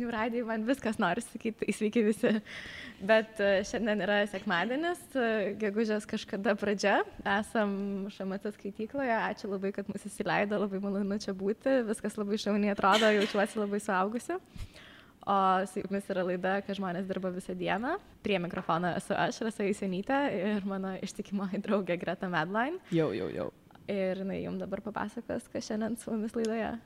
žinių radijai, man viskas nori sakyti, sveiki visi. Bet šiandien yra sekmadienis, gegužės kažkada pradžia. Esam ŠMT skaitykloje, ačiū labai, kad mus įsileido, labai malonu čia būti, viskas labai šauniai atrodo, jaučiuosi labai suaugusi. O su jumis yra laida, kad žmonės dirba visą dieną. Prie mikrofono esu aš, Rasa Jusionytė, ir mano ištikimoji draugė Greta Medline. Jau. Ir jums dabar papasakos, kas šiandien su mumis laidoje.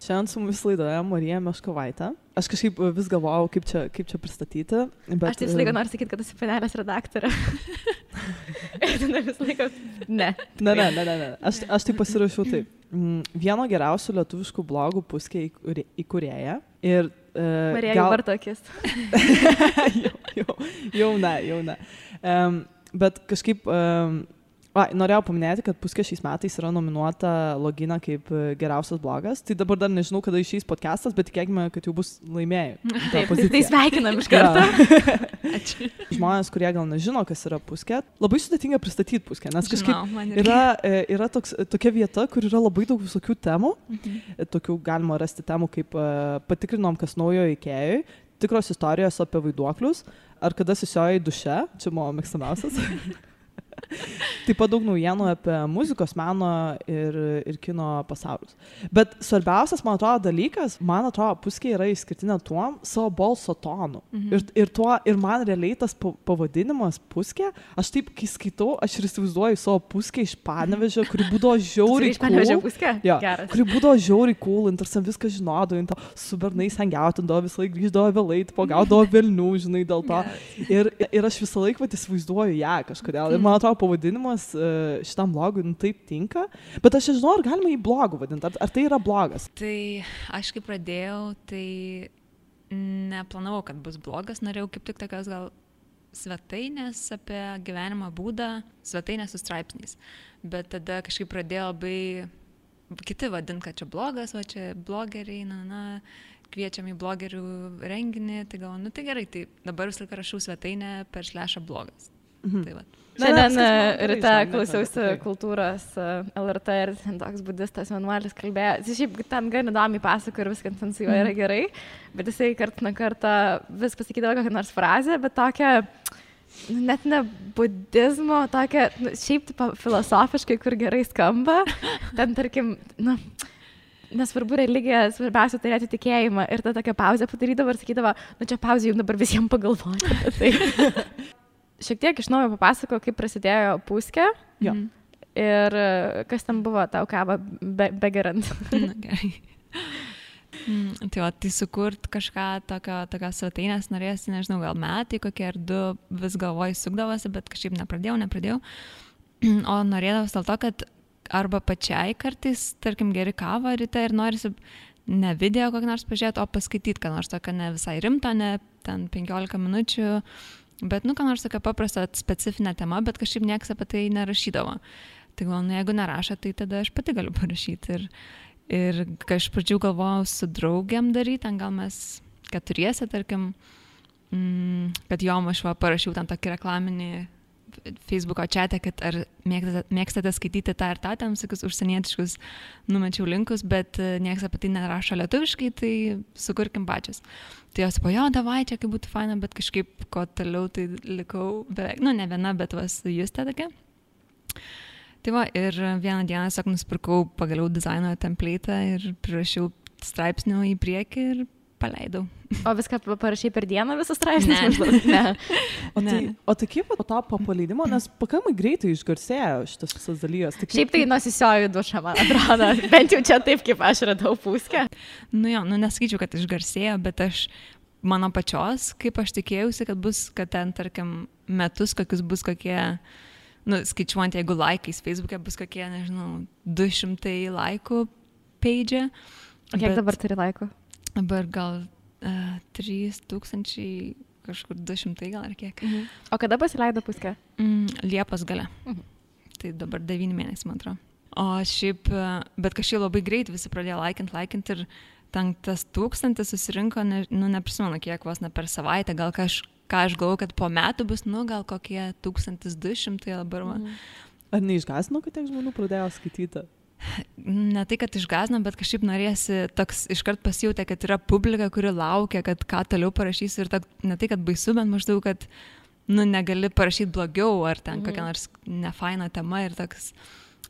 Šiandien su mumis laidoje Marija Meškovaitė. Aš kažkaip vis galvojau, kaip čia pristatyti. Bet, aš tai visą laiką noriu sakyti, kad esi panelės redaktorė. Ir tada visą laiką... Ne. Aš tai pasirašiau taip. Vieno geriausių lietuviškų blogų Puskė įkūrėja. Ir Marija jau vartokis. Jau ne. Bet kažkaip... norėjau paminėti, kad Puskė šiais metais yra nominuota Logina kaip geriausias blogas. Tai dabar dar nežinau, kada išeis podcastas, bet tikėkime, kad jau bus laimėjai. Taip, tai sveikinam iš karto. Ačiū. Žmonės, kurie gal nežino, kas yra Puskė, labai sudėtinga pristatyti Puskę, nes kažkaip yra tokia vieta, kur yra labai daug visokių temų. Tokių galima rasti temų, kaip patikrinom, kas naujo Ikėjui, tikros istorijos apie vaiduoklius, ar kada susiojai duše, čia mano mėgstamiausias. Taip pat daug naujienų apie muzikos, meno ir kino pasaulius. Bet svarbiausias, man atrodo, dalykas, Puskė yra išskirtinė tuom savo balso tonu. Ir man realiai tas pavadinimas Puskė, aš taip, kai skaitau, aš ir įsivaizduoju savo Puskę iš Panevėžio, kuri būdavo žiauriai cool. Kuri būdavo žiauriai cool, ir tarsi viską žinodavo, su bernais hangiautindavo, visą laiką grįždavo vėlai, gaudavo velnių, žinai, dėl to. Ir aš visą laiką įsivaizduoju ją kažkodėl. Ir man atrodo, pavadinimas šitam blogui taip tinka, bet aš nežinau, ar galima jį blogu vadinti, ar tai yra blogas? Tai aš kai pradėjau, tai neplanavau, kad bus blogas, norėjau kaip tik tokios gal svetainės apie gyvenimo būdą, svetainės su straipsniais, bet tada kažkaip pradėjo labai kiti vadinti, kad čia blogas, va čia blogeriai, kviečiam į blogerių renginį, tai galvoju, tai gerai, tai dabar visą laiką rašau svetainę per /blogas. Tai va. Šiandien ryte klausiausi kultūros LRT ir toks budistas vienuolis kalbėjo. Jis šiaip ten gan įdomiai pasako ir viskas ten su juo yra gerai, bet jisai kartą nuo karto vis pasakydavo kokią nors frazę, bet tokią, net ne budizmo, tokią, šiaip filosofiškai, kur gerai skamba. Ten, tarkim, nesvarbu religija, svarbiausia turėti tikėjimą. Ir ta tokia pauzė padarydavo ir sakydavo, čia pauzė jums dabar visiems pagalvoti apie tai. Šiek tiek iš naujo papasako, kaip prasidėjo Puskė. Jo. Ir kas ten buvo tau kavą begerant. Gerai. Tai sukurt kažką tokios svetainės norėsi, nežinau, gal metai kokie ar 2 vis galvoj sukdavosi, bet kažkaip nepradėjau. O norėdavos dėl to, kad arba pačiai kartais, tarkim, geri kavą ryte ir norisi ne video kokį nors pažiūrėti, o paskaityti, ką nors tokio ne visai rimto, ne ten 15 minučių. Bet, ką nors tokia paprasta specifinė tema, bet kažkaip niekas apie tai nerašydavo. Tai galvoju, jeigu nerašo, tai tada aš pati galiu parašyti. Ir kai aš pradžių galvojau su draugiam daryti, ten gal mes 4, tarkim, kad jom aš parašiau ten tokį reklaminį Facebooko chatą, kad ar mėgstate skaityti tą ir tą, ten visokius užsienietiškus numečiau linkus, bet niekas apie tai nerašo lietuviškai, tai sukurkim pačios. Tai jos po davai, čia kaip būtų faina, bet kažkaip ko toliau tai likau beveik, ne viena, bet su Juste tokia. Tai va, ir vieną dieną tiesiog nusipirkau pagaliau dizaino template'ą ir prirašiau straipsnių į priekį ir paleidau. O viską parašai per dieną visus straipsnius? Ne. O tai kaip po to paleidimo, nes pakankamai greitai išgarsėjo šitas visas dalykas. Šiaip tai nusisioju dušą, man atrodo, bent jau čia taip, kaip aš radau Puskę. Nesakyčiau, kad išgarsėjo, bet mano pačios, kaip aš tikėjausi, kad ten, tarkim, metus bus kokie, skaičiuojant, jeigu laikais Facebook'e bus kokie, nežinau, 200 laikų page. O kiek dabar turi laikų? Dabar gal 3000, kažkur 200 gal ar kiek. O kada pasileido Puskė? Liepos gale. Tai dabar 9 mėnesiai, man atrodo. O šiaip, bet kažkaip labai greit visi pradėjo laikint ir ten tas 1000 susirinko, neprisimenu kiek, vos ne per savaitę, gal ką aš galvoju, kad po metų bus, gal kokie 1200 dabar. Ar neišgąsdino, kad tiek žmonių pradėjo skaityti? ne tai, kad išgąsdino, bet kažkaip norėsi toks iškart pasijutė, kad yra publika, kuri laukia, kad ką toliau parašysiu ir ne tai, kad baisu, bet maždaug, kad negali parašyti blogiau ar ten kokia nors nefaina tema ir toks,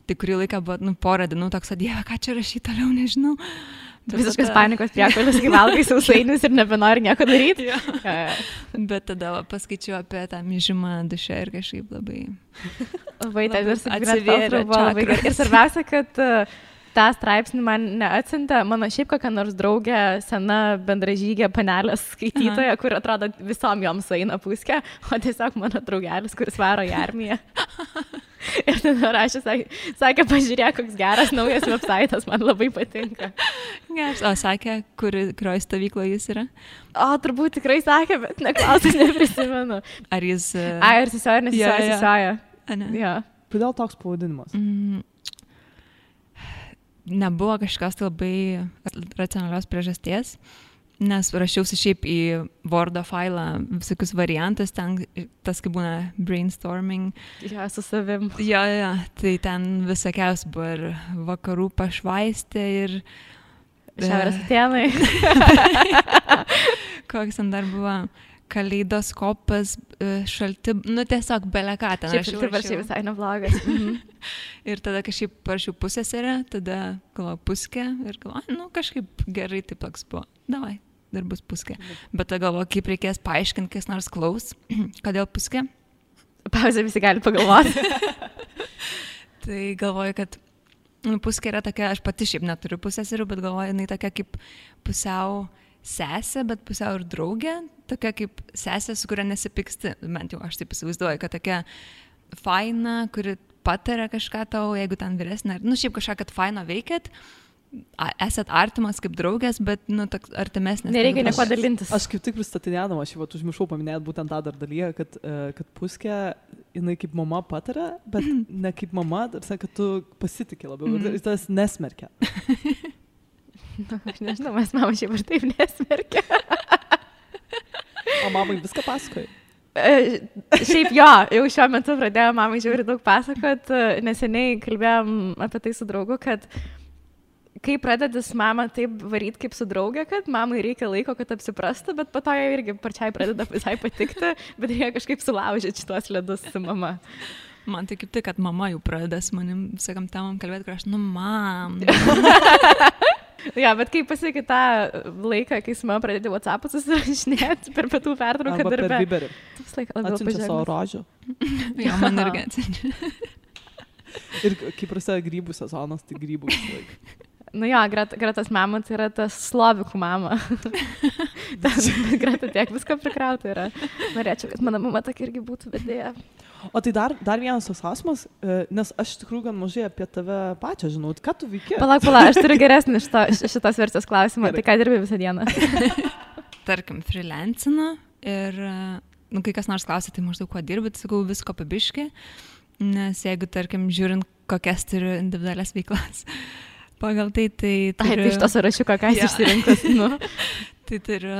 tai kurį laiką buvo, porą dienų toks, Dieve, ką čia rašyti toliau, nežinau. Visiškas panikos priepuolis, kai valgai sausainius ir nebenori nieko daryti. Bet tada paskaičiau apie tą myžimą duše ir kažkaip labai atsivėrė labai gerai. Ir svarbiausia, kad tą straipsnį man neatsiuntė mano šiaip kokia nors draugė, sena bendražygė panelės skaitytoja, kur atrodo visom joms eina puskė, o tiesiog mano draugelis, kuris varo į armiją. Ir tada rašė, sakė, pažiūrėk, koks geras naujas websaitas, man labai patinka. O sakė, kurioje stovykloje jis yra? O, turbūt tikrai sakė, bet neklausai, neprisimenu. Ar jis... Ar sesioja, nesisioja. Ja. Kodėl toks pavadinimas? Nebuvo kažkas tai labai racionalios priežasties, nes rašiausi šiaip į Wordo failą visokius variantus, ten tas kaip būna brainstorming. Ja, su savim. Jo, tai ten visokiaus buvo ir vakarų pašvaistė ir... Šiaurės atėnai. Koks ten dar buvo kaleidoskopas, šalti, tiesiog beleką ten. Šiaip šalti visai neblogas. Ir tada kažkaip parašiau pusseserę, tada galvoju puskė ir galvoju, kažkaip gerai taip toks buvo. Davai, dar bus puskė. Bet tada galvoju, kaip reikės paaiškinti, kas nors klaus, kodėl puskė. Pauzė visi gali pagalvoti. Tai galvoju, kad puskė yra tokia, aš pati šiaip neturiu pusseserių, bet galvoju, jinai tokia kaip pusiau sesė, bet pusiau ir draugė, tokia kaip sesė, su kuria nesipyksti, bent jau aš taip įsivaizduoju, kad tokia faina, kuri pataria kažką tau, jeigu ten vyresnė, šiaip kažką, kad faino veikėt, esat artimas kaip draugės, bet, toks artimesnis. Nereikia nieko dalintis. Aš kaip tik pristatinėdama, aš užmiršau paminėti būtent tą dar dalyką, kad puskė, jinai kaip mama pataria, bet ne kaip mama, kad tu pasitikė labiau, ir tas nesmerkia. Aš nežinau, mes mama šiaip ir taip nesmerkia. O mamai viską pasakoji? Šiaip jo, jau šiuo metu pradėjo mamai žiauriai daug pasakot, neseniai kalbėjom apie tai su draugu, kad kai pradedi su mama taip varyti kaip su draugė, kad mamai reikia laiko, kad apsiprastų, bet po to jai irgi pačiai pradeda visai patikti, bet reikia kažkaip sulaužyti šitos ledus su mama. Man tai kaip tai, kad mama jau pradeda su manim visakam temam kalbėti, kur aš, mam. Ja, bet kai pasiekia tą laiką, kai su mama pradėti WhatsApp'ą susirašinėti per pietų pertrauką darbe. Arba per Viberį. Atsiunčia savo rožių. Jo, man irgi atsiunčia. Ir kai prasideda grybų sezonas, tai grybų visą laiką. Gretas mama tai yra tas slovikų mama. Greta tiek visko prikrauta yra. Norėčiau, kad mano mama tokia irgi būtų vedėja. O tai dar vienas tos klausimas, nes aš iš tikrųjų gan mažai apie tave pačią žinau. Ką tu veiki? Palauk, aš turiu geresnį šitos versijos klausimą. Tai ką dirbi visą dieną? Tarkim, freelancinu ir, kai kas nors klausia, tai maždaug kuo dirbi, tai sakau visko pabiški, nes jeigu, tarkim, žiūrint, kokias turiu individualias veiklas, pagal tai turiu... Tai iš to sąrašiuko, ką esi išsirinkus, Tai turiu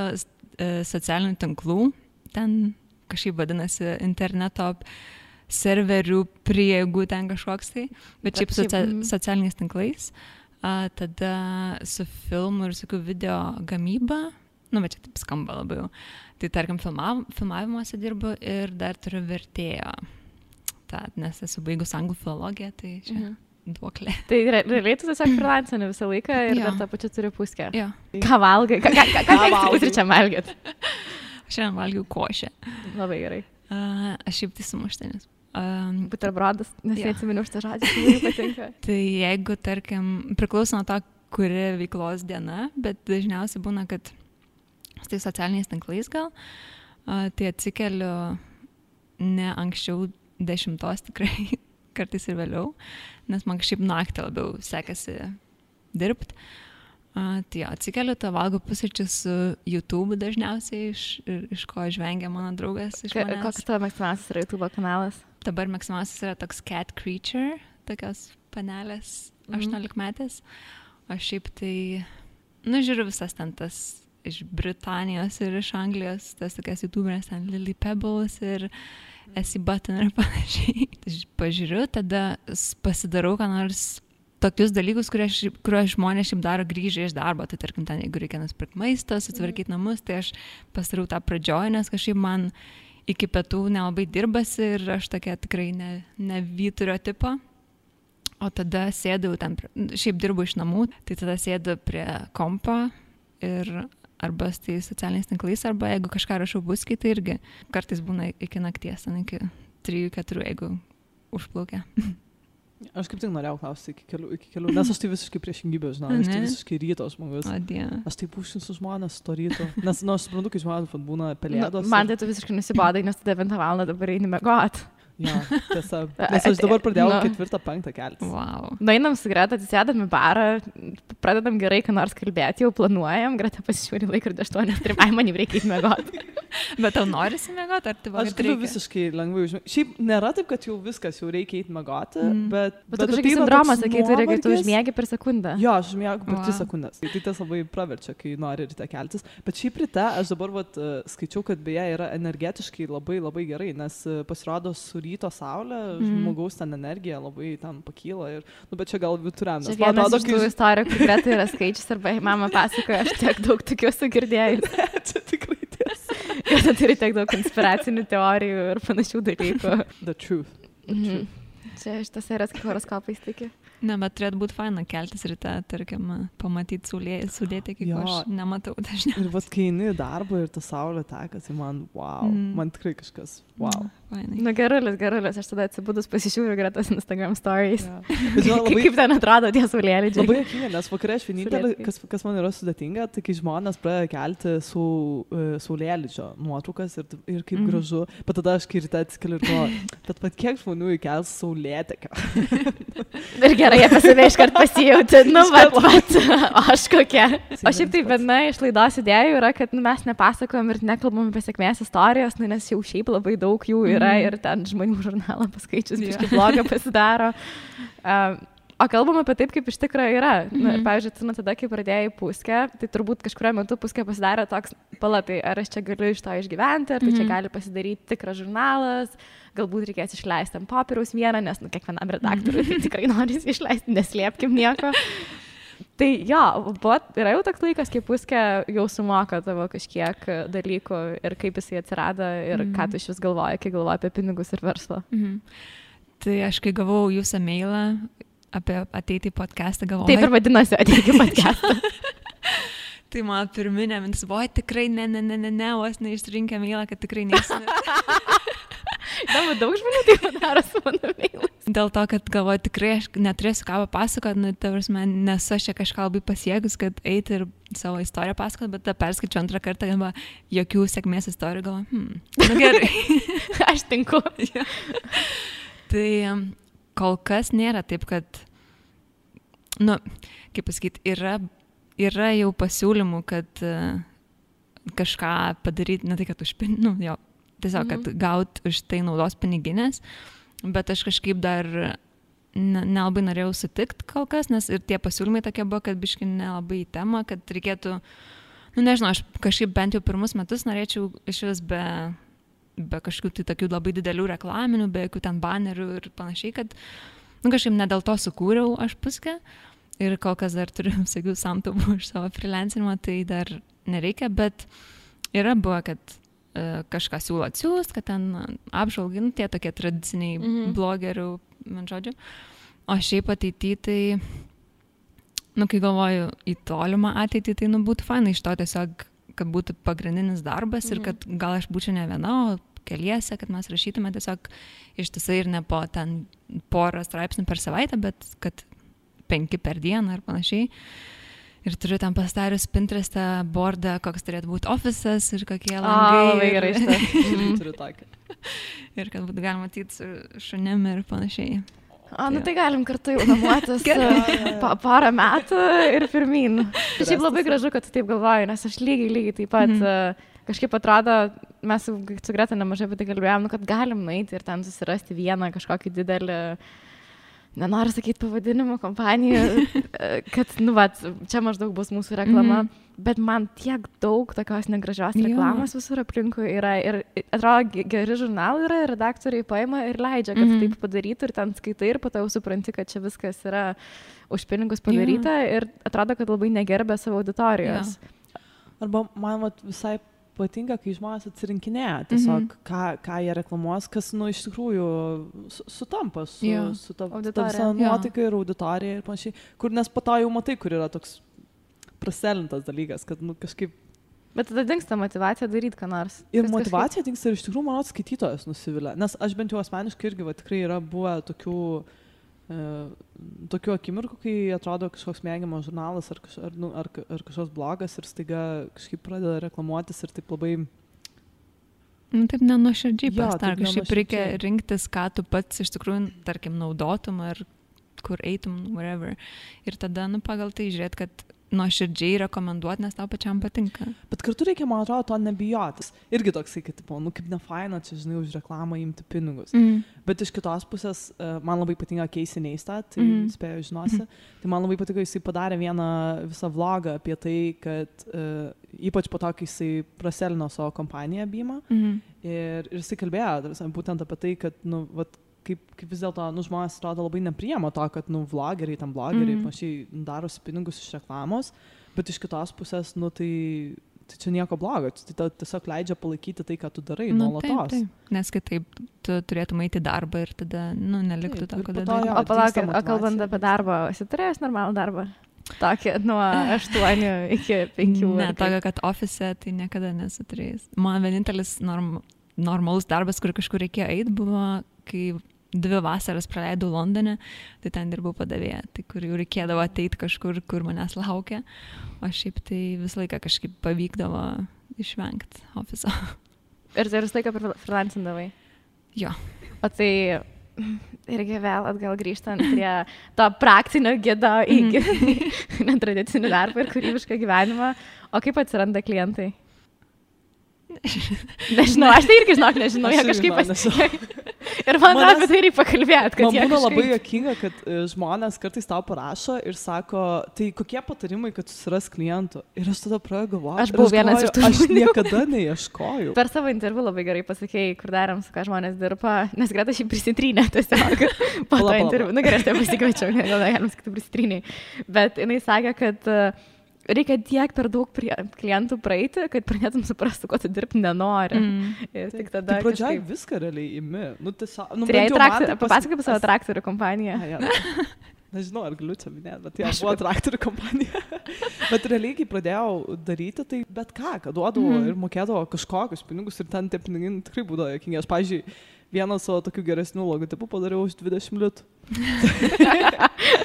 socialinių tinklų, ten kažkaip vadinasi interneto serverių prieigų ten kažkoks tai, bet šiaip socialiniais tinklais, tada su filmu ir su video gamyba, bet čia taip skamba labiau, tai tarkim filmavimuose dirbu ir dar turiu vertėjo, nes esu baigus anglų filologiją, tai čia duoklė. Tai realiai tu tiesiog freelancini visą laiką ir dar tą pačią turi puskę. Jo. Ką valgai? Ką pusryčiam valgyt? Šiandien valgiau košę. Labai gerai. Aš šiaip tai sumuštinis. Buterbrodas, nes neatsiminiau šitą žodį, tai labai patinka. Tai jeigu, tarkim, priklauso nuo to, kuri veiklos diena, bet dažniausiai būna, kad su tai socialiniais tinklais gal, tai atsikeliu ne anksčiau 10 tikrai, kartais ir vėliau, nes man kažkaip naktį labiau sekasi dirbti. Tai atsikeliu, valgau pusryčius su YouTube dažniausiai, iš ko žvengia mano draugas iš manęs. Koks tavo mėgstamiausias yra YouTube kanalas? Dabar mėgstamiausias yra toks Cat Creature, tokios panelės 18-metės. O šiaip tai, žiūriu visas ten tas iš Britanijos ir iš Anglijos, tas tokias YouTuberės, ten Lily Pebbles ir Essie Button ir panašiai. Pažiūriu, tada pasidarau ką nors tokius dalykus, kuriuos žmonės šiaip daro grįžę iš darbo. Tai tarkim, ten, jeigu reikia nusipirkti maistą, sutvarkyti namus, tai aš pasiriau tą pradžioj, nes kažkaip man iki pietų nelabai dirbasi ir aš tokia tikrai ne vyturio tipo. O tada sėdau ten, šiaip dirbu iš namų, tai tada sėdu prie kompo ir arba tai socialiniais tinklais, arba jeigu kažką rašau buskį, tai irgi kartais būna iki nakties, iki 3-4, jeigu užplaukia. Aš kaip tik norėjau klausyti iki kelių, nes aš tai visiškai priešingybė, žinau, aš tai visiškai ryto žmogus. Aš tai pušinsiu žmonės to ryto, nes, aš suprantu, kai žmonės būna pelėdos. Man tai tu visiškai nusibodai, nes tu 9 valandą dabar eini miegot. Ja, tiesa. Nes aš dabar pradėjau 4-5 keltis. Wow. Nueinam su Greta, atsisėdam į barą, pradedam gerai, ką nors kalbėti, jau planuojam, Greta pasižiūri laikrodį 8, man jau reikia įmiegoti. Bet tau norisi miegoti, ar tai aš galiu visiškai lengvai užmiegoti. Šiaip nėra taip, kad jau viskas, jau reikia eiti miegoti, bet tu kažkokį sindromą sakai, turi, kai tu užmiegi per sekundę. Jo, aš užmiegu per 3 sekundės. Tai tas labai praverčia, kai nori ryte keltis. Bet šiaip ryte aš dabar skaičiau, kad beje yra energetiškai labai labai gerai, nes pasirodo su ryto saulė, žmogaus ten energija labai ten pakyla ir, bet čia gal vituriam. Čia vienas iš tų istorijų, kur Greta yra skaičius, arba mama pasakoja, aš tiek daug tokių esu girdėjus. Čia tikrai tiesa. Greta turi tiek daug konspiracinių teorijų ir panašių dalykų. The truth. Čia šitas eras kaip horoskopais tiki. Ne, bet turėtų būti faina keltis ryte, tarkim, pamatyti saulėtį, kaip aš nematau dažniausiai. Ir vat kai eini į darbą ir ta saulė teka, tai man, wow, man tikrai kažkas, wow. Gerulis, aš tada atsibudus pasižiūriu Gretas Instagram stories. Kaip ten atrodo tie saulėlydžiai. Labai juokinga, nes vakare aš vienintelė, kas man yra sudėtinga, tai kai žmonės pradeda kelti saulėlydžio nuotraukas ir kaip gražu, bet tada aš kai ryte atsikeliu ir galvoju, bet kiek žmonių įkels saulėtekio. Ir gerai, apie save iškart pasijauti, aš kokia. O šiaip tai viena iš laidos idėjų yra, kad mes nepasakojam ir nekalbam apie sėkmės istorijos, nes jau šiaip labai daug jų yra ir ten žmonių žurnalą paskaičius, biškai blogą pasidaro. O kalbam apie taip, kaip iš tikrųjų yra. Pavyzdžiui, tada, kai pradėjai Puskę, tai turbūt kažkurio metu Puskę pasidarė toks palatai, ar aš čia galiu iš to išgyventi, ar tai čia gali pasidaryti tikras žurnalas, galbūt reikės išleisti ant popieriaus vieną, nes kiekvienam redaktoriui tai tikrai norisi išleisti, neslėpkim nieko. Tai jo, yra jau toks laikas, kai Puskę jau sumoka tavo kažkiek dalykų ir kaip jisai atsirado ir ką tu iš vis galvoji, kai galvoji apie pinigus ir verslą. Tai aš kai gavau jūsų mailą apie ateiti į podcastą, galvoju. Taip ir vadinasi ateiti į podcastą. Tai mano pirminė mintis buvo, tikrai ne, vos neišrinkę mailą, kad tikrai neįsime. Daug žmonių tai padaro su mano mailais. Dėl to, kad galvoju, tikrai aš neturėsiu ką papasakoti, nesu aš čia kažką labai pasiekus, kad eiti ir savo istoriją pasakoti, bet tą perskaičiu antrą kartą, galvoju, jokių sėkmės istorijų, galvoju, gerai. Aš tinku. Tai kol kas nėra taip, kad, kaip pasakyti, yra jau pasiūlymų, kad kažką padaryti, ne tai, kad tiesiog, kad gaut už tai naudos piniginės, bet aš kažkaip dar nelabai norėjau sutikti kol kas, nes ir tie pasiūlymai tokie buvo, kad biškai nelabai į temą, kad reikėtų, nežinau, aš kažkaip bent jau pirmus metus norėčiau iš vis be kažkokių tai tokių labai didelių reklaminių, be jokių ten banerių ir panašiai, kad kažkaip ne dėl to sukūriau aš Puskę ir kol kas dar turiu visokių samtubų iš savo freelancinimo, tai dar nereikia, bet yra buvo, kad kažką siūlo atsiųst, kad ten apžvalgai, tie tokie tradiciniai blogerių, man žodžiu. O šiaip ateity, tai, kai galvoju į tolimą ateitį, tai būtų fainai iš to tiesiog, kad būtų pagrindinis darbas ir kad gal aš būčiau ne viena, o keliese, kad mes rašytume tiesiog ištisai ir ne po ten porą straipsnių per savaitę, bet kad 5 per dieną ir panašiai. Ir turiu ten pastarius Pinterest'e bordą, koks turėtų būti ofisas ir kokie langai. Labai gerai šitas. Turiu tokį. Ir kad būtų galima matyti su šunim ir panašiai. Tai galim kartu jau namuotis porą metų ir pirmyn. Šiaip labai gražu, kad tu taip galvoji, nes aš lygiai taip pat kažkaip atrodo, mes su Greta nemažai apie tai kalbėjom, kad galim nueiti ir ten susirasti vieną kažkokį didelį nenoriu sakyti pavadinimo kompanijų, kad, nu, va, čia maždaug bus mūsų reklama, bet man tiek daug tokios negražios reklamos visur aplinkui yra ir atrodo, geri žurnalai yra, redaktoriai paima ir leidžia, kad taip padarytų ir ten skaitai ir po to jau supranti, kad čia viskas yra už pinigus padaryta ir atrodo, kad labai negerbė savo auditorijos. Arba man visai patinka, kai žmonės atsirinkinėja tiesiog, ką jie reklamuos, kas, nu, iš tikrųjų sutampa su ta visa nuotaika ir auditorija ir panašiai, kur nes po to jau matai, kur yra toks praselintas dalykas, kad, nu, kažkaip... Bet tada dingsta motivacija daryti ką nors. Ir motivacija dingsta ir iš tikrųjų, manau, skaitytojas nusivilia, nes aš bent jau asmeniškai irgi, va, tikrai yra buvę tokių akimirkų, kai atrodo kažkoks mėgiamas žurnalas ar kažkoks blogas ir staiga kažkaip pradeda reklamuotis ir taip labai... Nu, taip nenuoširdžiai pastar, kažkaip reikia rinktis, ką tu pats iš tikrųjų, tarkim, naudotum ar kur eitum, whatever. Ir tada, nu, pagal tai žiūrėt, kad nuoširdžiai rekomenduoti, nes tau pačiam patinka. Bet kartu reikia, man atrodo, to nebijotis. Irgi toksai, kad, nu, kaip nefaina, čia, žinai, už reklamą imti pinigus. Bet iš kitos pusės, man labai patinka Casey Neistat, tai spėjau žinosi. Tai man labai patiko, jisai padarė vieną visą vlogą apie tai, kad ypač po to, kai jisai praselino savo kompaniją Bima. Ir jisai kalbėjo būtent apie tai, kad, nu, vat, kaip vis dėlto, nu, žmonės atrodo labai nepriima to, kad, nu, vlogeriai, tam blogeriai, panašiai darosi pinigus iš reklamos, bet iš kitos pusės, nu, tai čia nieko blogo, tai tiesiog leidžia palaikyti tai, ką tu darai nuolatos. Taip. Nes kitaip tu turėtum eiti į darbą ir tada, nu, neliktų to, ką darai. O palauk, kalbant apie darbą, esi turėjęs normalų darbą? Tokį nuo 8 iki 5. Ne, tokio, kad ofise tai niekada nesu turėjęs. Man vienintelis normalus darbas, kur kažkur reikėjo eiti, buvo, kai 2 vasaras praleidau Londone, tai ten dirbau padavėja, tai kur jau reikėdavo ateiti kažkur, kur manęs laukia, o šiaip tai visą laiką kažkaip pavykdavo išvengti ofiso. Ir tai visą laiką freelancindavai? Jo. O tai irgi vėl atgal grįžtant prie to praktinio gido į netradicinį darbą ir kūrybišką gyvenimą, o kaip atsiranda klientai? Nežinau, aš tai irgi nežinau, jie kažkaip pasikeitė. Ir man apie tai reikia pakalbėti, kad man būna labai juokinga, kad žmonės kartais tau parašo ir sako, tai kokie patarimai, kad susiras klientų. Ir aš tada pradedu galvoti. Aš buvau vienas iš tų. Aš niekada neieškojau. Per savo interviu labai gerai pasakėjai, kur darėm, su ką žmonės dirba, nes Greta šiaip prisitrynė tiesiog po to interviu. Nu gerai, aš tai pasikviečiau, gal galim sakyti prisitryniai. Bet jinai sakė, kad reikia tiek per daug klientų praeiti, kad pradėtum suprasti, ko tu dirbti nenori. Ir tik tada... Tai pradžioj viską realiai imi. Nu, tiesiog... Nu, papasakai apie savo traktorių kompaniją. Nežinau, ar galiu čia minėti, bet aš buvo traktorių kompanija. Bet realiai, kai pradėjau daryti, tai bet ką duodavo ir mokėdavo kažkokius pinigus ir ten tie pinigai tikrai būdavo jokingi. Aš, pavyzdžiui, vieną savo tokių geresnių logotipų padariau už 20 litų.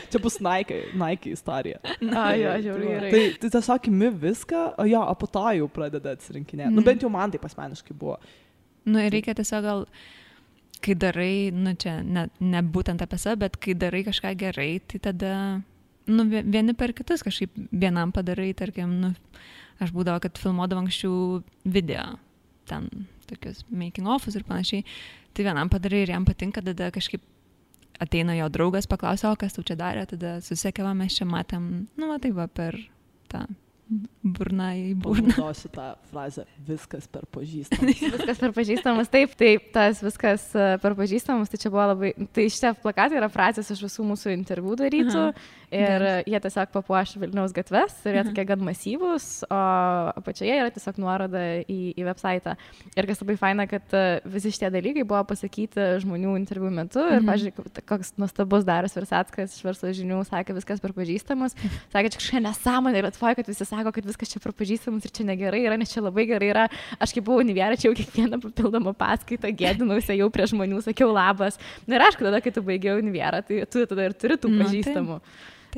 Čia bus Nike istorija. Jo, žiauriai. Tai tiesiog imi viską, o po to jau pradeda atsirinkinėti. Nu, bent jau man taip asmeniškai buvo. Nu, ir reikia tiesiog gal, kai darai, nu, čia ne būtent apie save, bet kai darai kažką gerai, tai tada, nu, vieni per kitus kažkaip vienam padarai, tarkim, nu, aš būdavo, kad filmuodavo anksčiau video, ten tokius making offus ir panašiai, tai vienam padarai ir jam patinka, tada kažkaip ateina jo draugas, paklausia, o kas tau čia darė, tada susiekėva, mes čia matėm, nu, va, taip va, per tą burną į burną. Panaudosiu tą frazę, viskas per pažįstamus. Viskas per pažįstamus, taip, tas viskas per pažįstamus, tai čia buvo labai, tai šitie plakatai yra frazės iš visų mūsų interviu darytų ir jie tiesiog papuoš Vilniaus gatves ir jie tokie gan masyvūs, o apačioje yra tiesiog nuoroda į website. Ir kas labai faina, kad visi šitie dalykai buvo pasakyti žmonių interviu metu ir, pažiūrėk, koks nuostabus Darius Versackas iš Verslo žinių sakė, viskas per pažįstamus, sakė, čia kažkokia nesąmonė ir atvoja, kad visi sako, kad viskas čia prapažįstamas ir čia negerai yra, nes čia labai gerai yra. Aš kaip buvau Univiere, čia jau kiekvieną papildomą paskaitą gėdinausi jau prie žmonių, sakiau labas. Na ir aišku, tada, kai tu baigiau Univiere, tai tu tada ir turi tų pažįstamų.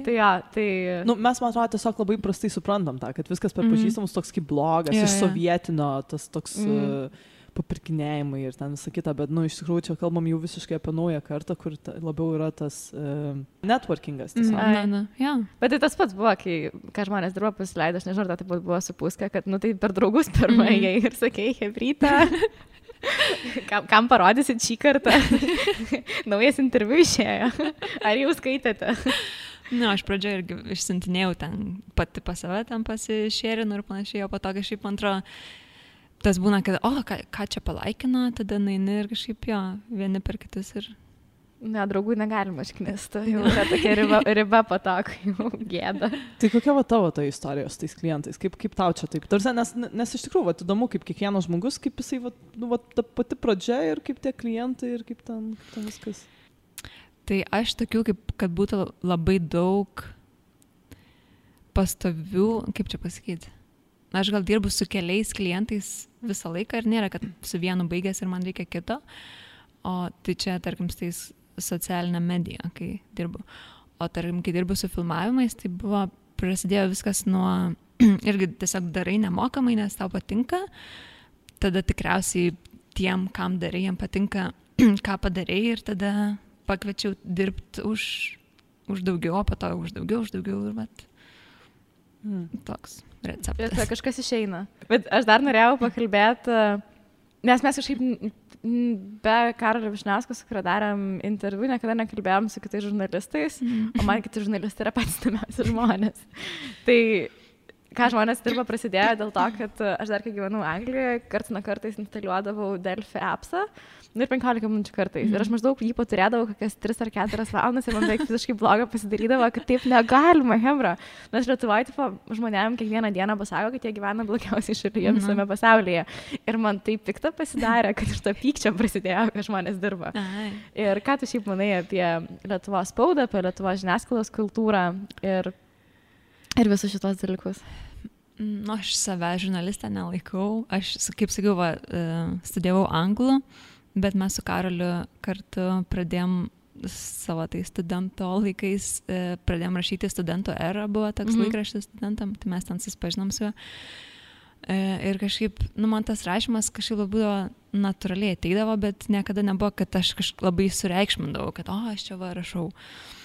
Tai jo, tai... Nu, mes, man atrodo, tiesiog labai prastai suprantam tą, kad viskas per pažįstamus toks kaip blogas, iš sovietinio, tas toks... papirkinėjimai ir ten visą kitą, bet, nu, iš tikrųjų, čia kalbam jau visiškai apie naują kartą, kur labiau yra tas networkingas. Bet tai tas pats buvo, kai žmonės dirbo pasileido, aš nežinau, tai buvo su Puska, kad, nu, tai per draugus pirmąjį ir sakei, hebrytą. Kam parodysit šį kartą? Naujas interviu išėjo. Ar jau skaitėte? Aš pradžioje irgi išsintinėjau ten pati pas save, ten pasišėrinu ir panašiai, o po to kažkaip antro, tas būna, kad, ką čia palaikino, tada naini ir kažkaip jo, vieni per kitus ir... Ne, draugų negalima išknisti, jau yra tokia riba po to, kai jau gėda. Tai kokia va tavo ta istorija su tais klientais? Kaip tau čia taip? Tarsi, nes iš tikrųjų, įdomu, kaip kiekvienas žmogus, kaip jisai, ta pati pradžia ir kaip tie klientai ir kaip ten viskas. Tai aš tokių, kad būtų labai daug pastovių, kaip čia pasakyti, aš gal dirbu su keliais klientais visą laiką ir nėra, kad su vienu baigęs ir man reikia kito, o tai čia, tarkim, su tais socialinę mediją, kai dirbu. O tarkim, kai dirbu su filmavimais, tai prasidėjo viskas nuo, irgi tiesiog darai nemokamai, nes tau patinka, tada tikriausiai tiem, kam darai, jiem patinka, ką padarai ir tada pakviečiau dirbti už daugiau, o po to už daugiau ir vat. Toks receptas. Ir kažkas išeina. Bet aš dar norėjau pakalbėti, nes mes kažkaip be Karolio Vyšniausko, su kurio darėm interviu, niekada nekalbėjom su kitais žurnalistais, o man kiti žurnalistai yra patys įdomiausi žmonės. Tai ką žmonės dirba prasidėjo dėl to, kad aš dar kai gyvenau Anglijoje, karts nuo kartais instaliuodavau Delfi appsą, ir 15 minučių kartais. Ir aš maždaug jį paturėdavau kokias 3 ar 4 valandas ir man beveik visiškai bloga pasidarydavo, kad taip negalima, hembra. Nes Lietuvoje, tipo, žmonėm kiekvieną dieną pasako, kad jie gyvena blogiausiai šalyje visame pasaulyje. Ir man taip pikta pasidarė, kad iš to pykčio prasidėjo, kad žmonės dirba. Ir ką tu šiaip manai apie Lietuvos spaudą, apie Lietuvos žiniasklaidos kultūrą ir visus šitos dalykus? Aš save žurnalistę nelaikau. Aš, kaip sakiau, studijavau anglų. Bet mes su Karoliu kartu pradėjom savo tai studento laikais, pradėjom rašyti Studento Era, buvo toks laikraštis studentam, tai mes ten susipažinom su juo. Ir kažkaip, man tas rašymas kažkaip buvo natūraliai ateidavo, bet niekada nebuvo, kad aš kažkaip labai sureikšmindavau, kad aš čia rašau.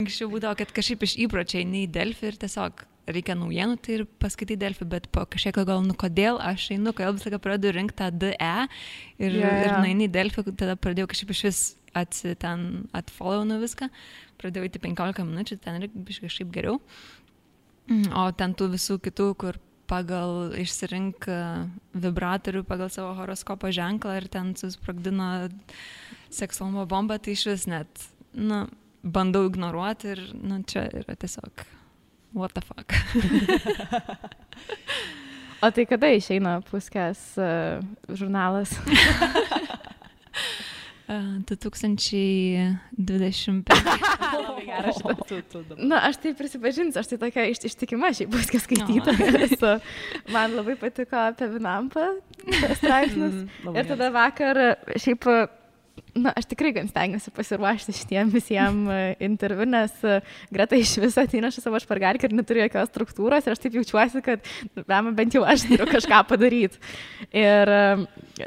Kažkaip būdavo, kad kažkaip iš įpročiai nei Delfi ir tiesiog reikia naujienų, tai ir paskaitai Delfi, bet po kažkiek gal, kodėl aš einu, kodėl visą laiką pradedu rinkti tą DE ir naini Delfi, tada pradėjau kažkaip iš vis atfollowinu viską, pradėjau įti 15 minučių, ten ir kažkaip geriau. O ten tų visų kitų, kur pagal išsirink vibratorių, pagal savo horoskopo ženklą ir ten susprogdino seksualumo bombą, tai iš vis net, bandau ignoruoti ir, čia yra tiesiog what the fuck. O tai kada išeina Puskės žurnalas? 2025. Labai geras šitas. Aš tai prisipažinsiu, aš tai tokia ištikima šiaip Puskės skaitytoja. Man labai patiko apie Vinampą straipsnius. Ir tada vakar šiaip... aš tikrai gan stengiuosi pasiruošti šitiem visiems interviu, nes Greta iš viso ateina šį savo špargalkę ir neturi jokios struktūros ir aš taip jaučiuosi, kad bent jau aš turiu kažką padaryti. Ir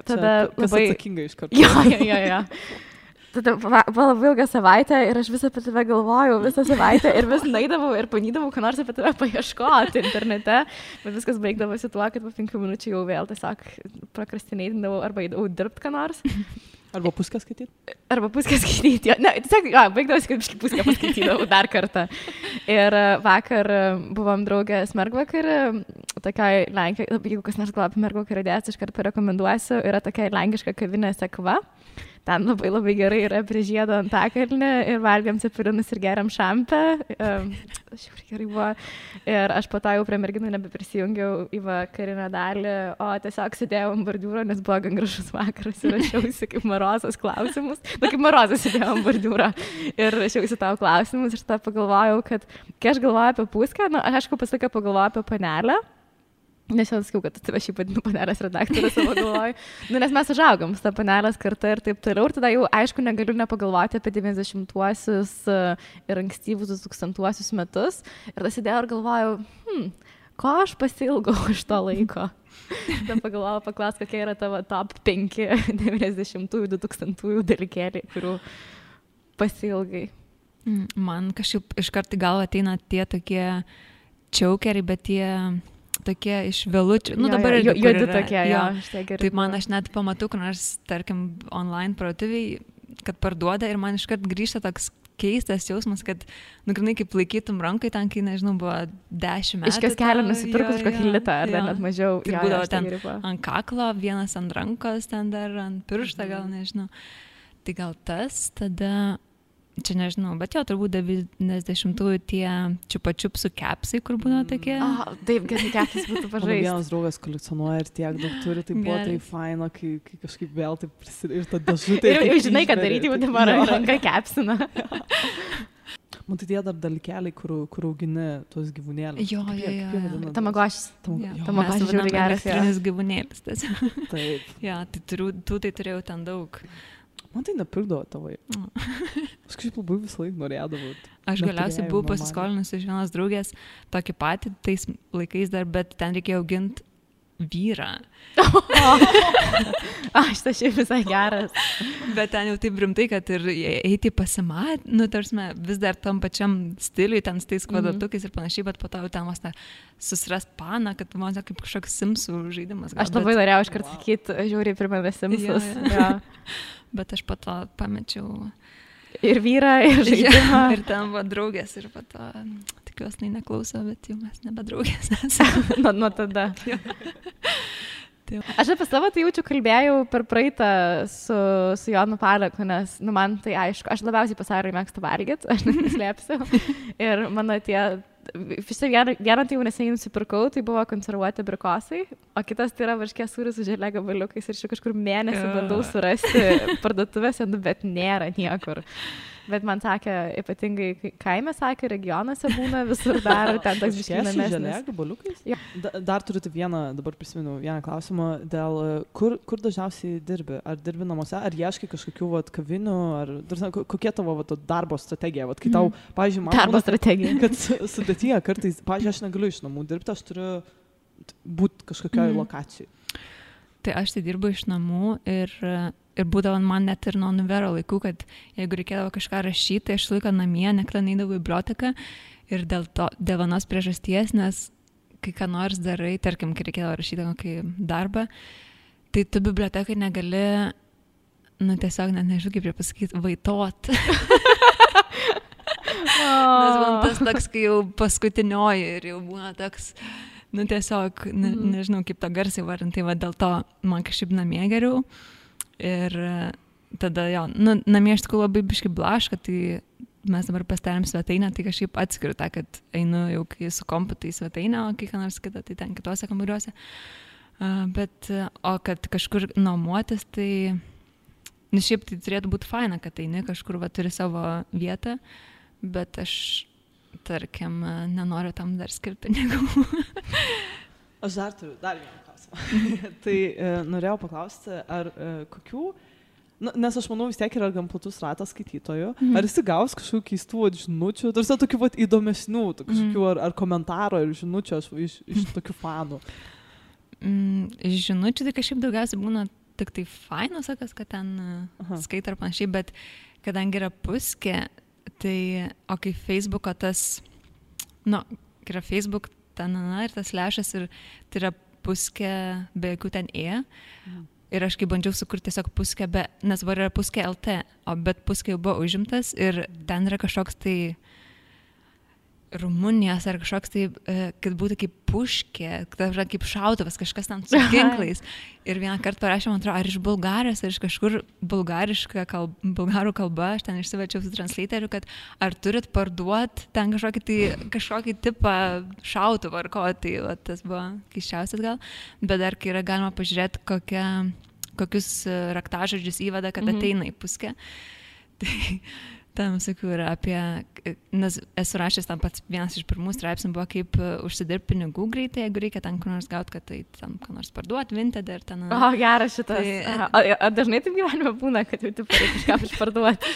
tada labai... atsakinga iš karto. Jo. Tada buvo labai ilgą savaitę ir aš visą apie tave galvojau, visą savaitę ir vis naidavau ir panydavau, ką nors apie tave paieškoti internete, bet viskas baigdavosi tuo, kad po 5 minučių jau vėl tiesiog prokrastinėdavau arba eidavau dirbti ką nors. Arba Puskę skaityti? Arba Puskę skaityti, ne, tiesiog, baigdavosi, kad Puskę paskaitydavau dar kartą. Ir vakar buvom draugės mergvakarį, tokiai Lenkijai, jeigu kas nors galvoja apie mergvakarį dėsi, iš karto rekomenduosiu, yra tokia lenkiška kavinė Sekva. Ten labai labai gerai yra prie žiedo Antakalnį ir valgiam cepelinus ir geriam šampę. Šiaip gerai buvo. Ir aš po to jau prie merginų nebeprisijungiau į vakarinę dalį, o tiesiog sėdėjau ant bordiūro, nes buvo gan gražus vakaras ir rašiausi kaip Marozas klausimus. Kaip Marozas sėdėjau ant bordiūro ir rašiausi tavo klausimus ir tada pagalvojau, kad kai aš galvoju apie Puskę, aš aišku pasakau pagalvoju apie Panelę. Nes jau sakiau, kad tu tave šiaip vadinu Panelės redaktorė savo galvoju. Nes mes užaugom su ta Panelės karta ir taip toliau. Ir tada jau, aišku, negaliu nepagalvoti apie 90-uosius ir ankstyvus 2000-uosius metus. Ir tada sėdėjau ir galvojau, ko aš pasilgau iš to laiko. Tada pagalvojau, paklaus, kokie yra tavo top 5 90-ųjų, 2000-ųjų dalykėliai, kurių pasilgai. Man kažkaip iš karto galva ateina tie tokie čiaukeriai, bet tie... tokie iš vėlučių. Nu, dabar ir juodi tokie, jo. Taip man aš net pamatau, kad nors, tarkim, online parduotuviai, kad parduoda ir man iškart grįžta toks keistas jausmas, kad, grinai kaip laikytum rankai ten, kai, nežinau, buvo 10 metų. Iškas kelią nusipirkus kokį litą, ar net mažiau. Tai būdavo ten ant kaklo, vienas ant rankos, ten dar ant pirštą, gal nežinau. Tai gal tas, tada... Čia nežinau, bet jo, turbūt 90-ųjų tie čiupa-čiupsų kepsai, kur būna tokie. Taip, gerai, kepsas būtų pažaisti. Mano vienas draugas kolekcionuoja ir tiek daug turi, tai buvo tai faina, kai kažkaip vėl taip prisidėjo ir ta dėžutė. Ir žinai, kad daryti, jau dabar ranka kepsina. Man tai tie dar dalykeliai, kur augini tuos gyvūnėlius. Jo. Tamagošis. Tamagošis žiūri geras. Elektrinis gyvūnėlis. Taip. Jo, tai turėjau ten daug. Man tai nepirkdavo tavai. Aš kažkaip labai visą laiką norėdavau. Aš galiausiai buvau pasiskolinus iš vienos draugės tokį patį tais laikais dar, bet ten reikėjo auginti vyrą. Aš tai šiaip visai geras. Bet ten jau taip rimtai, kad ir eiti pasimat, tarsime, vis dar tam pačiam stiliui, ten su tais kvadratukais ir panašiai, bet po to jau ten vos susirast paną, kad man kaip kažkoks Simsų žaidimas. Aš labai norėjau iškart sakyti, žiūri primena Simsus. Bet aš po to pamečiau ir vyrą, ir žaidimą. Ir ten buvo draugės ir po to tikiuosi neklauso, bet jau mes nebe draugės esame. Nuo tada. Aš apie savo tai jaučiu kalbėjau per praeitą su Jonu Paleku, nes man tai aišku, aš labiausiai pasaulyje mėgstu valgyti, aš neslėpsiu. Ir mano tie... Vieną tai jau neseniai nusipirkau, tai buvo konservuoti abrikosai, o kitas tai yra varškės sūris su želė gabaliukais ir kažkur mėnesį bandau surasti parduotuvėse, bet nėra niekur. Bet man sakė, ypatingai kaime sakė, regionuose būna visur dar, ten toks biškinamesnis. Želė gabaliukais? Ja. Dar turite dabar prisimenu vieną klausimą, dėl kur dažniausiai dirbi? Ar dirbi namuose, ar ieškai kažkokių kavinių, ar kokia tavo darbo strategija? Kai tau, pavyzdžiui, man darbo strategija. Kad sudėtyje kartais, pavyzdžiui, aš negaliu iš namų dirbti, aš turiu būti kažkokioj lokacijai. Tai aš tai dirbu iš namų ir būdavo man net ir nuo univero laikų, kad jeigu reikėdavo kažką rašyti, tai aš laiką namie, nekada neidavau į biblioteką ir dėl vienos priežasties, nes kai ką nors darai, tarkim, kai reikėdavo rašyti kokį darbą, tai tu bibliotekai negali, tiesiog net nežinau, kaip pasakyti, vaitot. Nes man tas toks, kai jau paskutinioji ir jau būna toks... tiesiog, nežinau, kaip tą garsiai varinti, dėl to man kažkaip namie geriau. Ir tada, namie aš tikrųjų labai biškai blaška, tai mes dabar pasidarėm svetainę, tai kažkaip atskiriu tą, kad einu jau kai su kompu tai svetainę, o kai ką nors kitą, tai ten kitose kambariuose. O kad kažkur nuomotis, tai, šiaip tai turėtų būti faina, kad eini kažkur turi savo vietą, bet aš... tarkim, nenoriu tam dar skirti pinigų. Aš dar turiu vieną klausimą. Tai norėjau paklausti, ar kokių, nes aš manau vis tiek yra gan platus ratas skaitytojų, ar esi gaus kažkokių keistų žinučių, tarsi tokių įdomesnių, kažkokių ar komentaro ir žinučių iš tokių fanų? Žinučių tai kažkaip daugiausiai būna tik tai fainos, kad ten skaita ar panašiai, bet kadangi yra puskė, tai, o kai Facebooko tas, kai yra Facebook, ten, ir tas lešas, ir tai yra puskė be jokių ten ir aš kai bandžiau sukurti tiesiog puskė nes var yra puskė LT, bet puskė jau buvo užimtas ir ten yra kažkoks tai Rumunijos ar kažkoks tai, kad būtų kaip puškė, kaip šautuvas, kažkas ten su ginklais. Ir vieną kartą parašė, man atrodo, ar iš Bulgarijos, ar iš kažkur bulgarų kalba, aš ten išsiverčiau su translatoriu, kad ar turit parduoti ten kažkokį tipą šautuvą ar ko, tai tas buvo keiščiausias gal. Bet dar kai yra galima pažiūrėti, kokius raktažodžius įveda, kad ateina į puskę. Tai tam sakiau yra apie, nes esu rašęs tam pats vienas iš pirmų straipsnių buvo kaip užsidirbti pinigų greitai, jeigu reikia ten kur nors gauti, kad tai tam kur nors parduoti, Vinted ir ten. Geras šitas. Tai, dažnai taip gyvenime būna, kad jau taip reikia kažką išparduoti?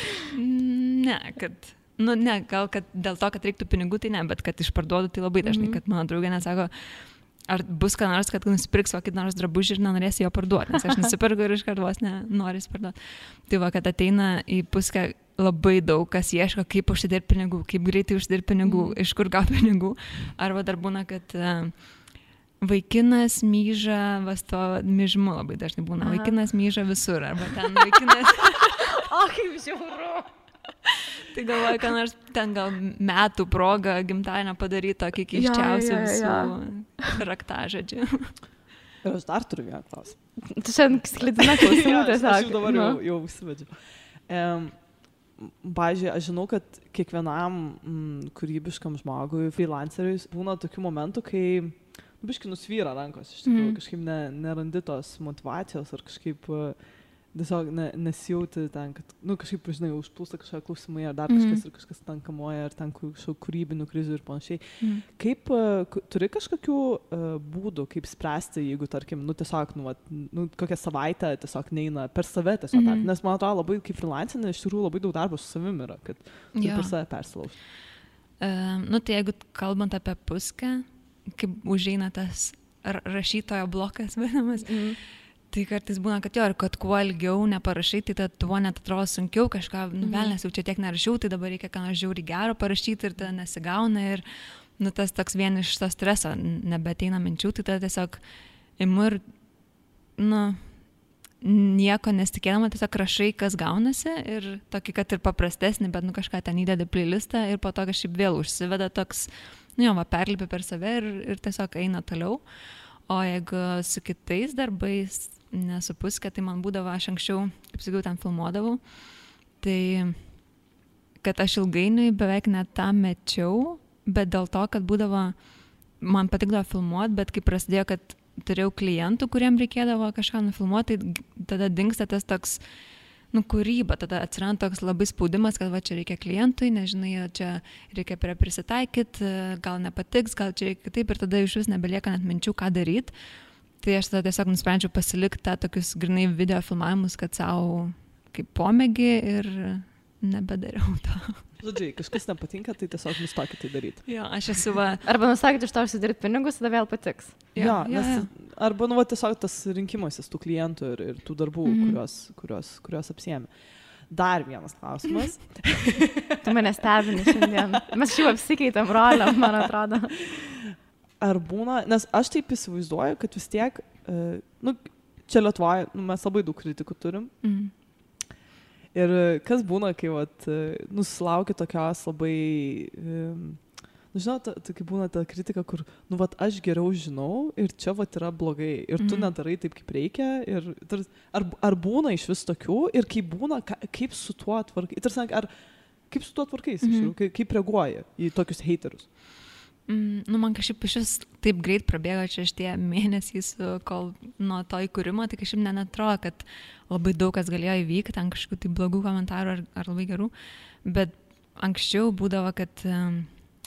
Ne, gal kad dėl to, kad reiktų pinigų, tai ne, bet kad išparduodu, tai labai dažnai, kad mano draugė nesako, ar bus ką nors, kad nusipirks kokį nors drabužį ir nenorėsi jo parduoti, nes aš nusipirku ir iš kartos nenorės parduoti. Tai kad ateina į puskę labai daug, kas ieško, kaip užsidirbti pinigų, kaip greitai užsidirbti pinigų, iš kur gauti pinigų. Arba dar būna, kad vaikinas myža, vas to myžmu labai dažnai būna, vaikinas myža visur, arba ten vaikinas... O, kaip žiauru. Tai galvoju, kad nors ten gal metų proga gimtadienio padaryti tokį keiščiausių visų raktažodžių. Ir aš dar turiu vieną klausimą. Tu šiandien sklidina klausimų tiesiog. Aš jau dabar jau užsivedžiu. Pavyzdžiui, aš žinau, kad kiekvienam kūrybiškam žmogui, freelanceriui, būna tokių momentų, kai biškai nusvyra rankos, iš tikrųjų, kažkaip nerandi tos motivacijos ar kažkaip tiesiog nesijauti ten, kad, kažkaip, žinai, užplūsta kažkokie klausimai, ar dar kažkas ir kažkas ten kamuoja, ar ten kažkokių kūrybinių krizių ir panašiai. Kaip, turi kažkokių būdų, kaip spręsti, jeigu, tarkim, tiesiog, kokią savaitę tiesiog neina per save tiesiog, nes man atrodo labai, kaip freelancinė, iš tikrųjų labai daug darbo su savim yra, kad per save persilaužti. Tai jeigu kalbant apie puskę, kaip užeina tas rašytojo blokas, vadinamas, tai kartais būna, kad ir kad kuo ilgiau neparašai, tai tuo net atrodo sunkiau kažką, velnės jau čia tiek nerašiau, tai dabar reikia ką nors žiauriai gero parašyti ir tada nesigauna ir tas toks vien iš to streso nebeteina minčių, tai tada tiesiog imu ir, nieko nesitikėdama, tiesiog rašai, kas gaunasi ir tokį, kad ir paprastesnį, bet kažką ten įdedi playlistą ir po to kažkaip vėl užsiveda toks, perlipi per save ir tiesiog eina toliau. O jeigu su kitais darbais nesupuskė, tai man būdavo, aš anksčiau, kaip sakiau, ten filmuodavau, tai kad aš ilgainiui beveik net tą mečiau, bet dėl to, kad būdavo, man patikdavo filmuoti, bet kai prasidėjo, kad turėjau klientų, kuriem reikėdavo kažką nufilmuoti, tai tada dingsta tas toks, kūryba, tada atsiranda toks labai spaudimas, kad va čia reikia klientui, nežinai, čia reikia prisitaikyti, gal nepatiks, gal čia reikia kitaip ir tada iš vis nebelieka net minčių, ką daryti. Tai aš tada tiesiog nusprendžiau pasilikti tą tokius grinai video filmavimus, kad savo kaip pomėgį ir nebedariau to. Žodžiai, kažkas nepatinka, tai tiesiog nustokit tai daryti. Jo, aš esu va... Arba nustokit iš to užsidirbti pinigus, tada vėl patiks. Arba tiesiog tas rinkimasis tų klientų ir tų darbų, kuriuos apsiėmė. Dar vienas klausimas. Tu mane stebini šiandien. Mes šiaip apsikeitėm rolę, man atrodo. Ar būna, nes aš taip įsivaizduoju, kad vis tiek, čia Lietuvoje, mes labai daug kritikų turim. Ir kas būna, kai susilaukia tokios labai, žinau, kai būna ta kritika, kur, aš geriau žinau ir čia yra blogai ir tu nedarai taip, kaip reikia. Ir, ar būna iš vis tokių ir kaip būna, kaip su tuo tvarkai, kaip su tuo tvarkais, kaip reaguoja į tokius haterius? Man kažkaip iš vis taip greit prabėgo čia šitie mėnesiais, kol nuo to įkūrimo, tai kažkaip neatrodo, kad labai daug kas galėjo įvykti, ten kažkokių tai blogų komentarų ar labai gerų, bet anksčiau būdavo, kad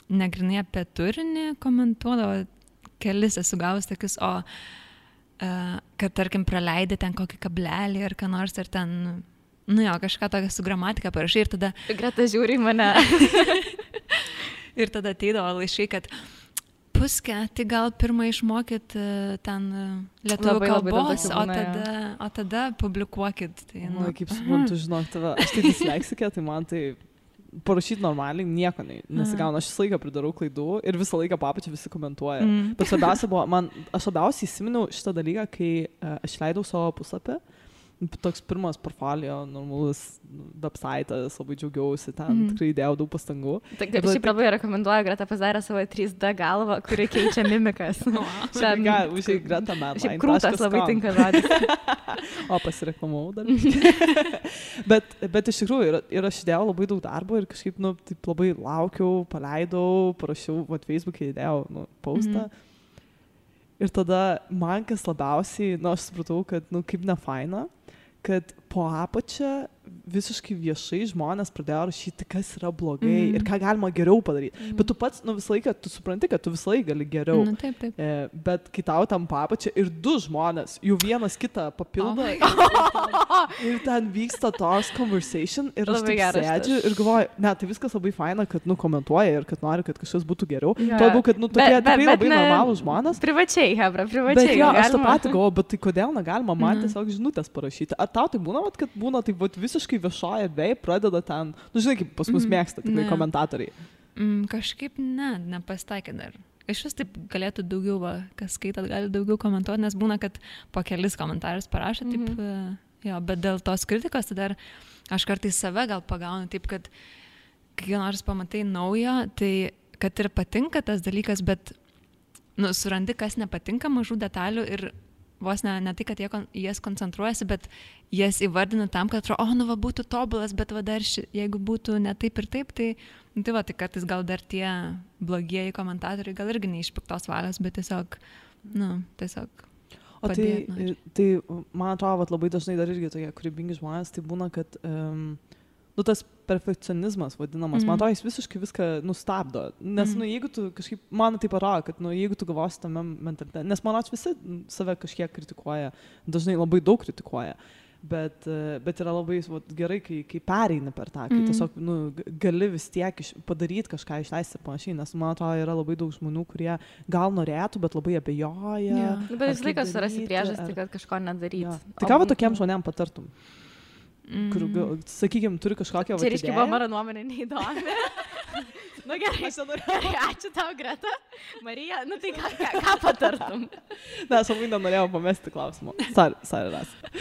negrinai apie turinį komentuodavo, kelis esu gavus tokius, kad tarkim praleidė ten kokį kablelį ar ką nors, ar ten, kažką tokią su gramatika parašai ir tada... Greta žiūri mane. Ir tada ateidavo laiškai, kad puskę, tai gal pirmą išmokyt ten lietuvių kalbos, o tada publikuokit. Tai, kaip suprantu, žinok, tave, aš tai disleksikė, tai man tai parašyti normaliai nieko nesigauna. Aš visą laiką pridarau klaidų ir visą laiką papačią visi komentuoja. Bet svarbiausia buvo, aš labiausiai įsiminiau šitą dalyką, kai aš leidau savo puslapį. Toks pirmas portfolio, normalus websaitas, labai džiaugiausi, ten tikrai įdėjau daug pastangų. Šiaip labai rekomenduoju, Greta padarė savo 3D galvą, kuri keičia mimikas. Užsiai Greta man. Šiaip krūtas labai tinka žodis. O, pasireklamau dar. bet iš tikrųjų, ir aš įdėjau labai daug darbo ir kažkaip, taip labai laukiau, paleidau, parašiau, Facebook'e įdėjau, postą. Ir tada man kas labiausiai, aš supratau, kad, kaip nefaina, kad po apačią visiškai viešai žmonės pradėjo rašyti, kas yra blogai ir ką galima geriau padaryti. Bet tu pats, visą laiką, tu supranti, kad tu visą laiką gali geriau. Taip. Bet kai tau tam papačia ir du žmonės, jau vienas kitą papildo ir ten vyksta tos conversation ir aš taip sėdžiu ir galvoju, tai viskas labai faina, kad komentuoja ir kad nori, kad kažkas būtų geriau. Tuo, kad tokie tikrai labai normalūs žmonės. Privačiai, Hebra, privačiai. Bet jo, aš tą patį galvoju, bet tai kodėl negalima man tiesiog žinutės parašyti? Ar tau tai būna, kad būna taip visiškai viešoje erdvėje pradeda ten, žinai, kaip pas mus mėgsta tikrai komentatoriai. Kažkaip nepasitaikė dar. iš vis taip galėtų daugiau, kas skaitat, gali daugiau komentuoti, nes būna, kad po kelis komentarus parašo, taip, jo, bet dėl tos kritikos, tai dar aš kartais save gal pagaunu, taip, kad kai nors pamatai naujo, tai kad ir patinka tas dalykas, bet surandi, kas nepatinka, mažų detalių ir vos ne tai, kad jas koncentruojasi, bet jas įvardina tam, kad atrodo, būtų tobulas, bet dar jeigu būtų ne taip ir taip, tai kartais gal dar tie blogieji komentatoriai gal irgi neišpiktos valios, bet tiesiog padėti. Tai man atrodo, labai dažnai dar irgi tokie kūrybingi žmonės, tai būna, kad tas perfekcionizmas vadinamas, man atrodo, jis visiškai viską nustabdo. Nes, jeigu tu kažkaip, man tai parodo, kad, jeigu tu galvosi tame mentalitete, nes man atrodo, visi save kažkiek kritikuoja, dažnai labai daug kritikuoja, bet yra labai gerai, kai pereini per tą, kai tiesiog, gali vis tiek padaryti kažką, išleisti ir panašiai, nes, man atrodo, yra labai daug žmonių, kurie gal norėtų, bet labai abejoja. Bet vis laikas surasi priežastį, kad kažko nedaryti. Tai ką tokiem žmonėm patartum? Kur, sakykime, turi kažkokią čia reiškia, mano nuomonė neįdomi. Gerai, ačiū tau, Greta. Marija, tai ką patartum? Ne, aš labai nenorėjau pamesti klausimą. Sorry, Rasa.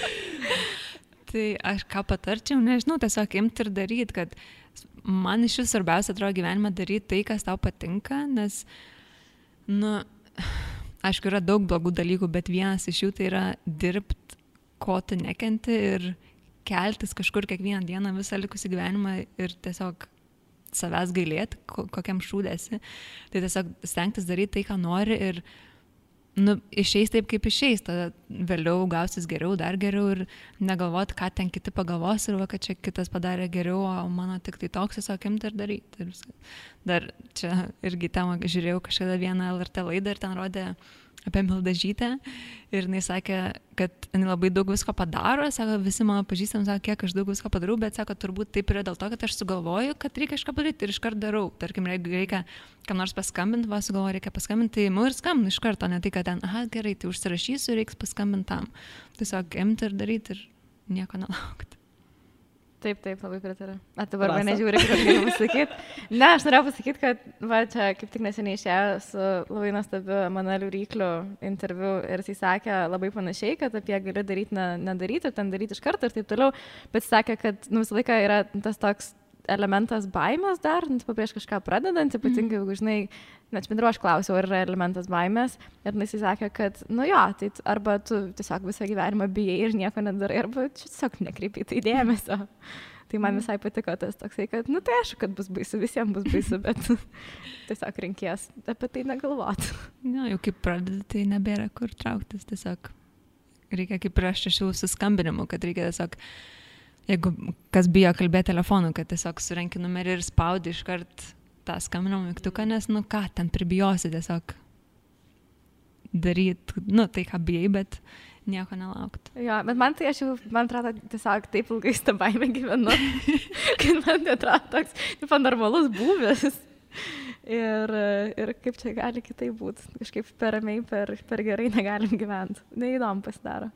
Tai aš ką patarčiau, nežinau, tiesiog imti ir daryti, kad man iš vis svarbiausia atrodo gyvenime daryti tai, kas tau patinka, nes, aišku, yra daug blogų dalykų, bet vienas iš jų tai yra dirbti, ko tu nekenti ir keltis kažkur kiekvieną dieną visą likusį gyvenimą ir tiesiog savęs gailėti, kokiam šūdėsi. Tai tiesiog stengtis daryti tai, ką nori ir išeis taip, kaip išeis. Tada vėliau gausis geriau, dar geriau ir negalvoti, ką ten kiti pagalvos ir kad čia kitas padarė geriau, o mano tik tai toks, tiesiog imti ir daryti. Dar čia irgi temą žiūrėjau kažkada vieną LRT laidą ir ten rodė apie Mildažytę ir jinai sakė, kad jinai labai daug visko padaro, sako, visi mano pažįstami sako, kiek aš daug visko padarau, bet sako, turbūt taip yra dėl to, kad aš sugalvoju, kad reikia kažką padaryti ir iškart darau. Tarkim, jeigu reikia kam nors paskambinti, sugalvoju, reikia paskambinti, tai ir skambinu iš karto, ne tai, kad ten, gerai, tai užsirašysiu, reiks paskambinti tam. Tiesiog imti ir daryti ir nieko nelaukti. Taip, labai pritariu. Dabar mane žiūri, kad galiu pasakyti. Ne, aš norėjau pasakyti, kad čia kaip tik neseniai išėjo su labai nuostabiu Emanueliu Rykliu interviu ir jis sakė labai panašiai, kad apie gali daryti, nedaryti, ten daryti iš karto ir taip toliau, bet jis sakė, kad visą laiką yra tas toks elementas baimės dar, prieš kažką pradedant, ypatingai, jeigu žinai, net bendru aš klausiau, ar yra elementas baimės ir jis sakė, kad, tai arba tu tiesiog visą gyvenimą bijai ir nieko nedarai, arba tiesiog nekreipi tai dėmesio. Tai man visai patiko tas toksai, kad, tai aišku, kad bus baisu, visiems bus baisu, bet tiesiog reikės apie tai negalvoti. Jau kaip pradedi, tai nebėra kur trauktis, tiesiog reikia kaip prieš šių suskambinimų, kad reikia tiesiog jeigu kas bijo kalbėti telefonu, kad tiesiog surenki numerį ir spaudi iškart tą skambinimo mygtuką, nes, ten pribijosi tiesiog daryti, tai ką bijai, bet nieko nelaukti. Jo, bet man atrodo, tiesiog taip ilgai tą baimę gyvenu, kad man atrodo toks normalus būvis. Ir kaip čia gali kitaip būti, kažkaip per ramiai, per gerai negalim gyventi. Neįdomu pasidaro.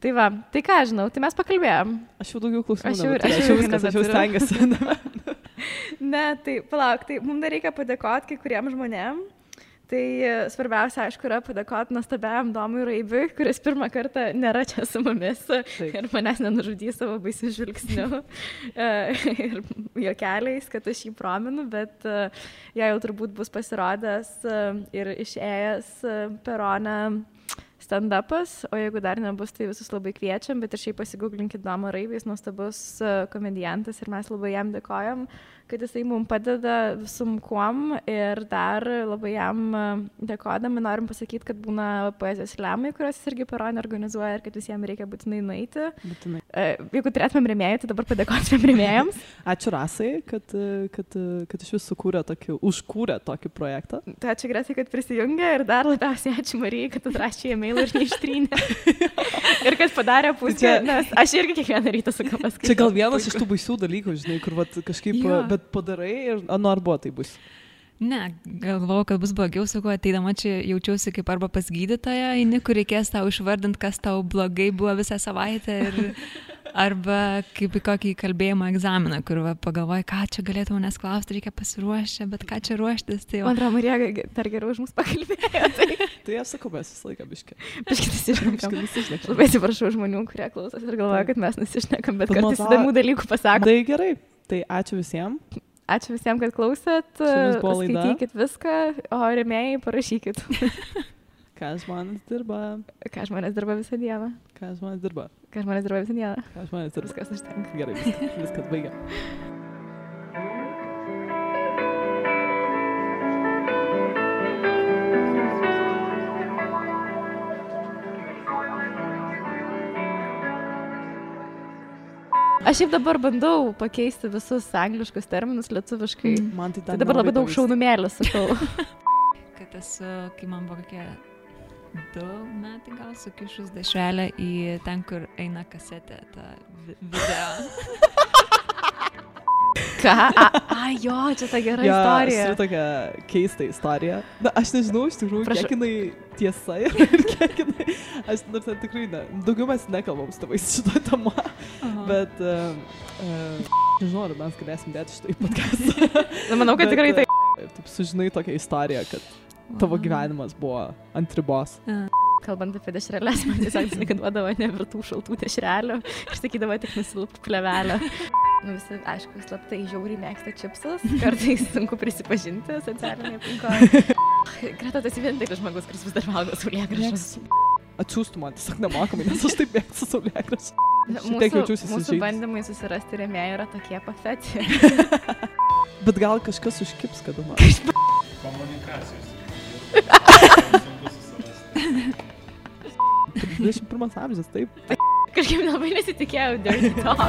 Tai va, tai ką žinau, tai mes pakalbėjom. Aš jau daugiau klausimų. Aš jau stengiuosi. Ne, tai palauk, tai mums dar reikia padėkoti kai kuriem žmonėm. Tai svarbiausia, aišku, yra padėkoti nuostabiam Domui Raibiui, kuris pirmą kartą nėra čia su mumis ir manęs nenužudys savo baisių žvilgsnių ir juokeliais, kad aš jį prominu, bet jie jau turbūt bus pasirodęs ir išėjęs Perone stand-upas, o jeigu dar nebus, tai visus labai kviečiam, bet ir šiaip pasigūglinkit Domą Raibį, jis nuostabus komediantas ir mes labai jam dėkojam, kad jisai mums padeda visum kuom ir dar labai jam dėkodami norim pasakyti, kad būna poezijos slemai, kuriuos jis irgi Perone organizuoja ir kad visiems reikia būtinai nueiti. Būtinai. Jeigu turėtumėm rėmėjų, tai dabar padėkotumėm rėmėjams. Ačiū Rasai, kad iš vis užkūrė tokį projektą. Tai ačiū Gretai, kad prisijungė ir dar labiausiai ačiū Marijai, kad atrašė e-mailą ir neištrynė. Ir kad padarė pusę, nes aš irgi kiekvieną rytą sakau paskaitau. Čia gal vienas iš tų baisių dalykų, žinai, kur kažkaip, bet padarai ir ar buvo tai bus. Ne, galvojau, kad bus blogiau, sakau, ateidama čia jaučiausi kaip arba pas gydytoją, eini, kur reikės tau išvardinti, kas tau blogai buvo visą savaitę ir arba kaip į kokį kalbėjimo egzaminą, kur pagalvoji, ką čia galėtų manęs klausti, reikia pasiruošti, bet ką čia ruoštis. Tai man atrodo, Marija dar geriau už mus pakalbėjo. Tai aš sakau, mes visą laiką biškė. Biškė nesišnekam. Labai atsiprašau žmonių, kurie klausosi ir galvoja, kad mes nesišnekam, bet kartais įdomių dalykų pasako. Tai gerai, tai ačiū visiems. Ačiū visiems, kad klausėt. Skaitykit viską, o rėmėjai parašykit. Ką žmonės dirba? Ką žmonės dirba visą dieną? Ką žmonės dirba? Ką žmonės dirba visą dieną? Ką žmonės dirba? Viskas užtenka. Gerai, viskas baigia. Aš šiaip dabar bandau pakeisti visus angliškus terminus lietuviškai. Man tai dabar labai daug šaunumėlių sakau. Kad esu, kai man buvo kokie 2 metai gal sukišus dešrelę į ten, kur eina kasetė, tą video. Ką? Jo, čia ta gera istorija. Čia tokia keista istorija. Na, aš nežinau, iš tikrųjų, kiek jinai tiesa ir kiek jinai... Aš nors tikrai ne. Daugiau mes nekalbam su tavais šitą temą. Bet, nežinau, ar mes galėsim dėti šitą į podcastą. Manau, kad tikrai tai. Taip sužinai tokią istoriją, kad tavo gyvenimas buvo ant ribos. Kalbant apie dešrelės, man tiesiog duodavo nevirtų šaltų dešrelių ir sakydavo tik nusilupk plevelę. Visi, aišku, slaptai žiauriai mėgsta čipsus, kartais sunku prisipažinti socialinėje aplinkoje. Greta, tas vienintelis žmogus, kuris vis dar valgo saulėgrąžas. Atsiųstų man tiesiog nemokamai, nes aš taip mėgstu saulėgrąžas. Mūsų bandymai susirasti rėmėjų yra tokie pathetic. Bet gal kažkas užkips kada nors. Komunikacijos. 21 amžius, taip. Kažkaip labai nesitikėjau dirty talk.